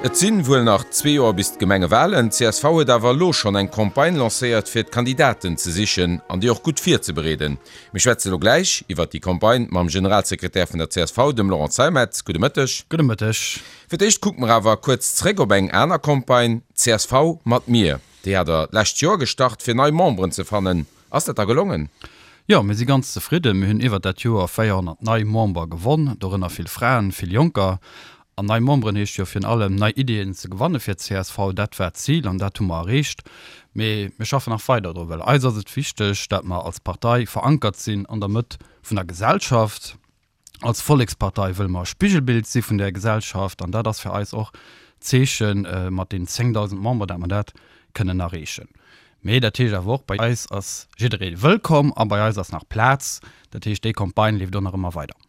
Et sinn wuel nach zwee Joer bis d'Gemengewalen. Csv huet awer elo schonn eng Campagne lancéiert fir d'Kandidaten ze sichen an déi och gutt virzebereeden. Mir schwätze elo gläich iwwert déi Campagne mam Generalsekretär vun der csv, dem Laurent Zeimet. Gudde Mëtteg. Gudde Mëtteg. Fir d'éischt kucke mer awer kuerz zréck op eng aner Campagne, csv mat mir. Déi hat der d'lescht Joer gestart fir nei Memberen ze fannen. Ass dat da gelongen? Jo, mir si ganz zefridden. Mir hunn iwwert dat Joer 400 nei Member gewonn, dorënner vill Fraen, vill Jonker. An nei Memberen heescht jo virun allem nei Ideeën ze gewanne fir d'CSV. Dat war d'Zil an dat hu mer erreecht. Mee mir schaffen nach weider dru, well eis ass et wichteg, dat mer als Partei verankert sinn an der Mëtt vun der Gesellschaft. Als Vollekspartei wëlle mer e Spigelbild si vun där Gesellschaft an dat ass fir eis och d'Zeeche mat den 10.000 Member, dat mer dat kënnen erreechen. Mee dat heescht awer och, bei eis ass jidderee wëllkomm a bei eis ass nach Plaz. Dat heescht, déi Campagne leeft och nach ëmmer weider.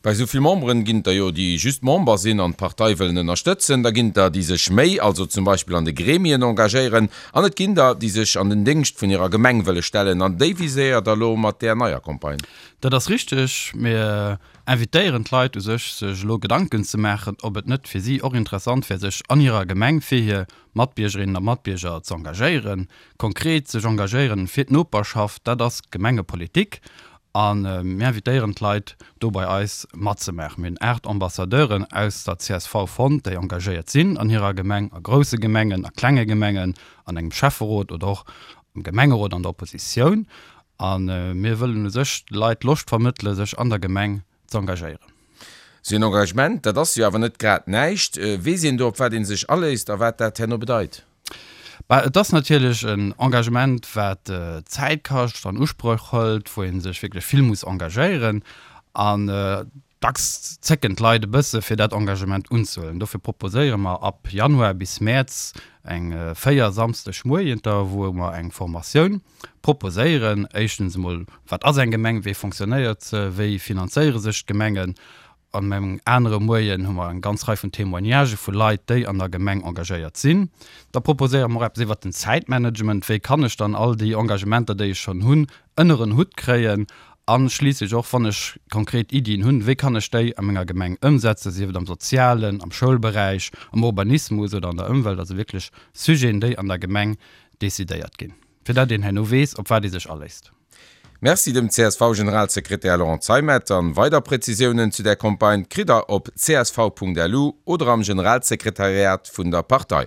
Bei esou vill Memberen ginn et der jo, déi just Member sinn an d'Partei wëllen ënnerstëtzen. Da ginn et der, déi sech méi, also zum Beispill an de Gremien engagéieren. An et ginn der, déi sech an den Déngscht vun hirer Gemeng wëlle stellen. An déi viséiert der elo mat där neier Campagne. Dat ass richteg. Mir invitéieren d'Leit u sech, sech elo Gedanken ze maachen, ob et net fir si och interessant wär, sech an hirer Gemeng fir hir Matbiergerinnen a Matbierger ze engagéieren. Konkret sech engagéieren fir d'Noperschaft, dat ass Gemengepolitik. A mir invitéieren d'Leit, do bei eis matzemaachen. Mir hunn 8 Ambassadeuren aus der csv fonnt, déi engagéiert sinn an hirer Gemeng, a grousse Gemengen, a klenge Gemengen, an engem Schäfferot oder och am Gemengerot an der Oppositioun. A mir wëllen u sech de Leit Loscht vermëttele sech an der Gemeng z'engagéieren. Sou en Engagement, dat ass jo awer net grad näischt. Weess een do op wat ee sech aléisst a wat dat herno bedeit? Bah, et ass natierlech en Engagement wat Zäit kascht, an Usproch hëlt, wou ee sech wierklech vill muss engagéieren. An dacks zécken d'Leit e bësse fir dat Engagement unzehuelen. Dofir proposéiere mer ab Januar bis Mäerz eng 4 Samsdegmoienter, wou mer eng Formatioun proposéieren. Éischtens emol, wat ass eng Gemeng, wéi fonctionnéiert se, wéi finanzéiere sech d'Gemengen? An engem anere Moien hu mer eng ganz Rei vun Témoignagë vu Leit, déi an der Gemeng engagéiert sinn. Da proposéiere mer och eppes iwwert den Zäitmanagement, wéi kann ech dann all déi Engagementer, déi ech schonn hunn, ënner en Hutt kréien? A schliisslech och, wann ech konkret Iddien hunn, wéi kann ech déi a menger Gemeng ëmsetzen, sief et am Sozialen, am Schoulberäich, am Urbanismus oder an der Ëmwelt, also wierklech Sujeten, déi an der Gemeng decidéiert ginn, fir dat een herno weess, op wat ee sech aléisst. Merci dem CSV-Generalsekretär Laurent Zeimet. An weider Präzisiounen zu där Campagne kritt der op csv.lu oder am Generalsekretariat vun der Partei.